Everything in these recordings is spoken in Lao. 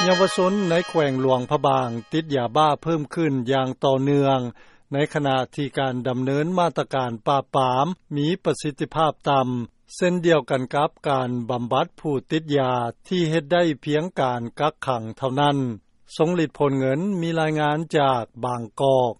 ເຍົາວະຊົນ ໃນແຂວງຫຼວງພະບາງ ຕິດຢາບ້າເພີ່ມຂຶ້ນ ຢ່າງຕໍ່ເນື່ອງ ໃນຂະນະທີ່ ການດຳເນີນ ມາດຕະການ ປາບປາມ ມີປະສິດທິພາບຕໍ່າ ເຊັ່ນດຽວກັນ ກັບການບຳບັດ ຜູ້ຕິດຢາ ທີ່ເຮັດໄດ້ພຽງ ການກັກຂັງ ເທົ່ານັ້ນ. ຊົງລິດ ໂພນເງິນ ມີລາຍງານ ຈາກບາງກອກ.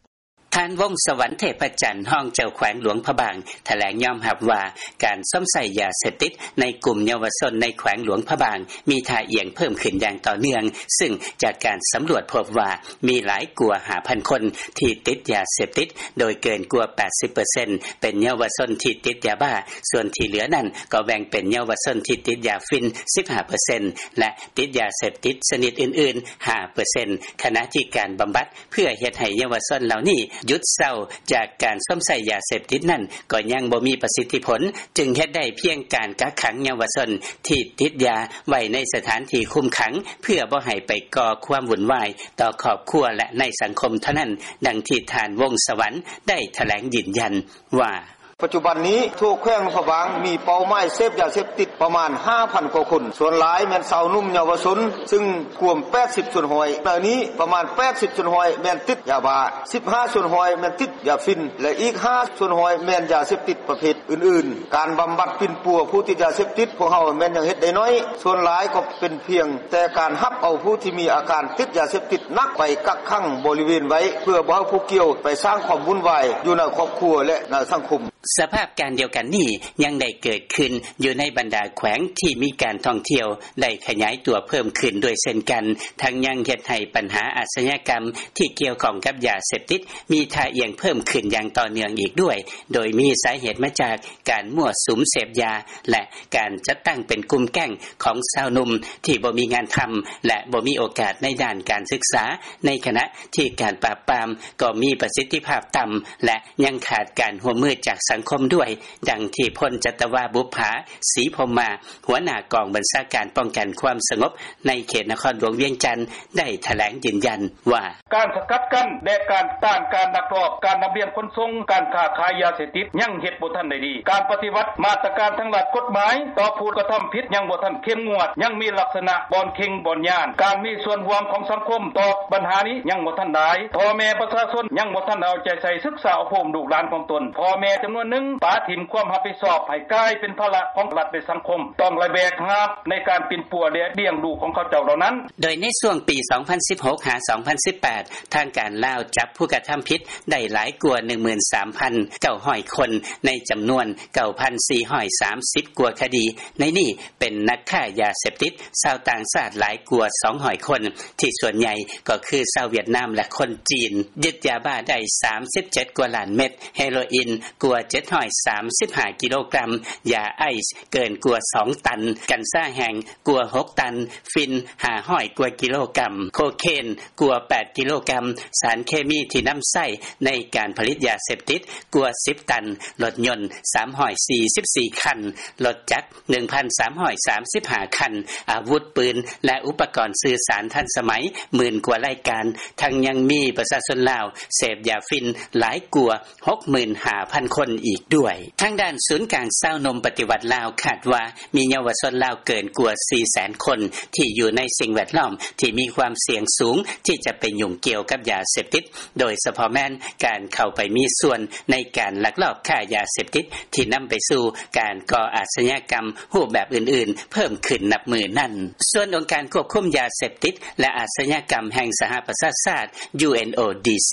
ທ່ານ ວົງສະຫວັນ ເທບພະຈັນ ຮອງເຈົ້າແຂວງ ຫຼວງພະບາງ ຖະແຫຼງຍອມຮັບວ່າ ການຊົມໃຊ້ ຢາເສບຕິດ ໃນກຸ່ມເຍົາວະຊົນ ໃນແຂວງຫຼວງພະບາງ ມີທ່າອ່ຽງ ເພີ່ມຂຶ້ນຢ່າງຕໍ່ເນື່ອງ ຊຶ່ງຈາກການສຳຫຼວດ ພົບວ່າ ມີຫຼາຍກວ່າ ຫ້າພັນຄົນ ທີ່ຕິດຢາເສບຕິດ ໂດຍເກີນກວ່າ ແປດສິບເປີເຊັນ ເປັນເຍົາວະຊົນ ທີ່ຕິດຢາບ້າ ສ່ວນທີ່ເຫຼືອນັ້ນ ກໍແບ່ງເປັນເຍົາວະຊົນ ທີ່ຕິດຢາຝິ່ນ ສິບຫ້າເປີເຊັນ ແລະ ຕິດຢາເສບຕິດ ຊະນິດອື່ນໆ ຫ້າເປີເຊັນ ຂະນະທີ່ ການບຳບັດ ເພື່ອເຮັດໃຫ້ເຍົາວະຊົນ ເຫຼົ່ານີ້ ຢຸດເຊົາ ຈາກການຊົມໃຊ້ ຢາເສບຕິດນັ້ນ ກໍຍັງບໍ່ມີ ປະສິດທິຜົນ ຈຶ່ງເຮັດໄດ້ພຽງ ການກັກຂັງເຍົາວະຊົນ ທີ່ຕິດຢາໄວ້ ໃນສະຖານທີ່ຄຸມຂັງ ເພື່ອບໍ່ໃຫ້ໄປ ກໍ່ຄວາມວຸ້ນວາຍ ຕໍ່ຄອບຄົວ ແລະ ໃນສັງຄົມ ເທົ່ານັ້ນ. ດັ່ງທີ່ ທ່ານ ວົງສະຫວັນ ໄດ້ຖະແຫຼງ ຢືນຢັນວ່າ: “ປັດຈຸບັນນີ້ ທົ່ວແຂວງຫຼວງພະບາງ ມີເປົ້າໝາຍ ເສບຢາເສບຕິດ ປະມານ ຫ້າພັນກວ່າຄົນ ສ່ວນຫຼາຍ ແມ່ນຊາວໜຸ່ມ ເຍົາວະຊົນ ຊຶ່ງກວມ ແປດສິບສ່ວນຮ້ອຍ ໃນນີ້ ປະມານ ແປດສິບສ່ວນຮ້ອຍ ແມ່ນຕິດຢາບ້າ ສິບຫ້າສ່ວນຮ້ອຍ ແມ່ນຕິດຢາຝິ່ນ ແລະ ອີກຫ້າສ່ວນຮ້ອຍ ແມ່ນຢາເສບຕິດ ປະເພດອື່ນໆ. ການບຳບັດ ປິ່ນປົວ ຜູ້ຕິດຢາເສບຕິດ ພວກເຮົາ ແມ່ນຍັງເຮັດໄດ້ໜ້ອຍ ສ່ວນຫຼາຍ ກໍເປັນພຽງແຕ່ ການຮັບເອົາ ຜູ້ທີ່ມີອາການ ຕິດຢາເສບຕິດໜັກ ໄປກັກຂັງ ບໍລິເວນໄວ້ ເພື່ອບໍ່ໃຫ້ຜູ້ກ່ຽວ ໄປສ້າງຄວາມວຸ້ນວາຍ ຢູ່ໃນຄອບຄົວ ແລະ ໃນສັງຄົມ.” ສະພາບການດຽວກັນນີ້ ຍັງໄດ້ເກີດຂຶ້ນ ຢູ່ໃນບັນດາແຂວງ ທີ່ມີການທ່ອງທ່ຽວ ໄດ້ຂະຫຍາຍຕົວ ເພີ່ມຂຶ້ນດ້ວຍເຊັ່ນກັນ ທັງຍັງເຮັດໃຫ້ ບັນຫາອາຊຍາກັມ ທີ່ກ່ຽວຂ້ອງກັບ ຢາເສບຕິດ ມີທ່າອ່ຽງເພີ່ມຂຶ້ນ ຢ່າງຕໍ່ເນື່ອງອີກດ້ວຍ ໂດຍມີສາເຫດມາຈາກ ການມົ້ວສຸມເສບຢາ ແລະ ການຈັດຕັ້ງ ເປັນກຸ່ມແກ້ງ ຂອງຊາວໜຸ່ມ ທີ່ບໍ່ມີງານທຳ ແລະ ບໍ່ມີໂອກາດ ໃນດ້ານການສຶກສາ ໃນຂະນະທີ່ ການປາບປາມ ກໍມີປະສິດທິພາບຕໍ່າ ແລະ ຍັງຂາດການຮ່ວມມື ຈາກສັງຄົມດ້ວຍ. ດັ່ງທີ່ ພົນຈັດຕະວາ ບຸບຜາ ສີພົມມາ ຫົວໜ້າກອງບັນຊາການ ປ້ອງກັນຄວາມສະຫງົບ ໃນເຂດນະຄອນຫຼວງວຽງຈັນ ໄດ້ຖະແຫຼງຢືນຢັນວ່າ: “ການສະກັດກັ້ນ ແລະ ການຕ້ານ ການລັກລອບ ການລຳລຽງຂົນສົ່ງ ການຄ້າຂາຍຢາເສບຕິດ ຍັງເຮັດບໍ່ທັນໄດ້ດີ ການປະຕິບັດ ມາດຕະການທາງດ້ານກົດໝາຍ ຕໍ່ຜູ້ກະທຳຜິດ ຍັງບໍ່ທັນເຂັ້ມງວດ ຍັງມີລັກສະນະ ບ່ອນເຄັ່ງບ່ອນຢ້ານ ການມີສ່ວນຮ່ວມ ຂອງສັງຄົມ ຕໍ່ບັນຫານີ້ ຍັງບໍ່ທັນຫຼາຍ ພໍ່ແມ່ປະຊາຊົນ ຍັງບໍ່ທັນເອົາໃຈໃສ່ ສຶກສາອົບຮົມ ລູກຫຼານຂອງຕົນ ພໍ່ແມ່ຈຳນວນໜຶ່ງ ປະຖິ້ມຄວາມຮັບຜິດຊອບ ໃຫ້ກາຍເປັນພາລະ ຂອງລັດ ແລະ ສັງຄົມ ຕ້ອງໄດ້ແບກຫາບ ໃນການປິ່ນປົວ ແລະ ລ້ຽງດູຂອງເຂົາເຈົ້າເຫຼົ່ານັ້ນ.” ໂດຍໃນຊ່ວງປີ ສອງພັນສິບຫົກ ຫາ ສອງພັນສິບແປດ ທາງການລາວ ຈັບຜູ້ກະທຳຜິດ ໄດ້ຫຼາຍກວ່າ ໜຶ່ງໝື່ນສາມພັນເກົ້າຮ້ອຍຄົນ ໃນຈຳນວນ ເກົ້າພັນສີ່ຮ້ອຍສາມສິບກວ່າຄະດີ ໃນນີ້ ເປັນນັກຄ້າຢາເສບຕິດ ຊາວຕ່າງຊາດ ຫຼາຍກວ່າ ສອງຮ້ອຍຄົນ ທີ່ສ່ວນໃຫຍ່ ກໍຄືຊາວຫວຽດນາມ ແລະ ຄົນຈີນ ຍຶດຢາບ້າໄດ້ ສາມສິບເຈັດກວ່າລ້ານເມັດ, ເຮໂຣອິນກວ່າ ເຈັດຮ້ອຍສາມສິບຫ້າກິໂລກຣາມ, ຢາໄອສ໌ເກີນກວ່າສອງຕັນ, ກັນຊາແຫ້ງກວ່າຫົກຕັນ, ຝິ່ນຫ້າຮ້ອຍກວ່າກິໂລກຣາມ, ໂຄເຄນກວ່າແປດກິໂລກຣາມ, ສານເຄມີທີ່ນຳໃຊ້ໃນການຜະລິດຢາເສບຕິດກວ່າສິບຕັນ, ລົດຍົນສາມຮ້ອຍສີ່ສິບສີ່ຄັນ, ລົດຈັກ ໜຶ່ງພັນສາມຮ້ອຍສາມສິບຫ້າຄັນ, ອາວຸດປືນ ແລະ ອຸປະກອນສື່ສານທັນສະໄໝໝື່ນກວ່າລາຍການ, ທັງຍັງມີປະຊາຊົນລາວເສບຢາຝິ່ນຫຼາຍກວ່າຫົກໝື່ນຫ້າພັນຄົນອີກດ້ວຍ. ທາງດ້ານສູນກາງຊາວໜຸ່ມປະຕິວັດລາວຄາດວ່າ ມີເຍົາວະຊົນລາວເກີນກວ່າສີ່ແສນຄົນ ທີ່ຢູ່ໃນສິ່ງແວດລ້ອມທີ່ມີຄວາມສ່ຽງສູງທີ່ຈະໄປຫຍຸ້ງກ່ຽວກັບຢາເສບຕິດ, ໂດຍສະເພາະແມ່ນການເຂົ້າໄປມີສ່ວນໃນການລັກລອບຄ້າຢາເສບຕິດ ທີ່ນຳໄປສູ່ການກໍ່ອາຊຍາກຳຮູບແບບອື່ນໆເພີ່ມຂຶ້ນນັບມື້ນັ້ນ. ສ່ວນອົງການຄວບຄຸມຢາເສບຕິດ ແລະ ອາຊຍາກຳແຫ່ງສະຫະປະຊາຊາດ UNODC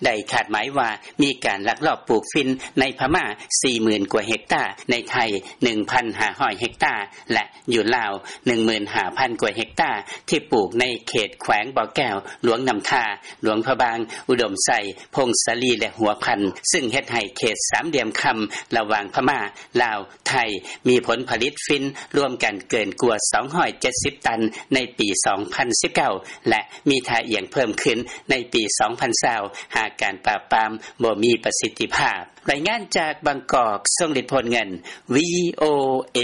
ໄດ້ຄາດໝາຍວ່າ ມີການລັກລອບປູກຝິ່ນໃນພະມ້າສີ່ໝື່ນກວ່າເຮັກຕາ, ໃນໄທໜຶ່ງພັນຫ້າຮ້ອຍເຮັກຕາ ແລະ ຢູ່ລາວໜຶ່ງໝື່ນຫ້າພັນກວ່າເຮັກຕາ ທີ່ປູກໃນເຂດແຂວງບໍ່ແກ້ວ, ຫຼວງນ້ຳທາ, ຫຼວງພະບາງ, ອຸດົມໄຊ, ຜົ້ງສາລີ ແລະ ຫົວພັນ, ຊຶ່ງເຮັດໃຫ້ເຂດສາມຫຼ່ຽມຄຳລະຫວ່າງພະມ້າ, ລາວ, ໄທ ມີຜົນຜະລິດຝິ່ນລວມກັນເກີນກວ່າສອງຮ້ອຍເຈັດສິບຕັນໃນປີສອງພັນສິບເກົ້າ ແລະ ມີທ່າອ່ຽງເພີ່ມຂຶ້ນໃນປີສອງພັນຊາວ ຫາກການປາບປາມບໍ່ມີປະສິດທິພາບ. ລາຍງານຈາກບາງກອກ, ຊົງລິດ ໂພນເງິນ, ວີໂອເອ.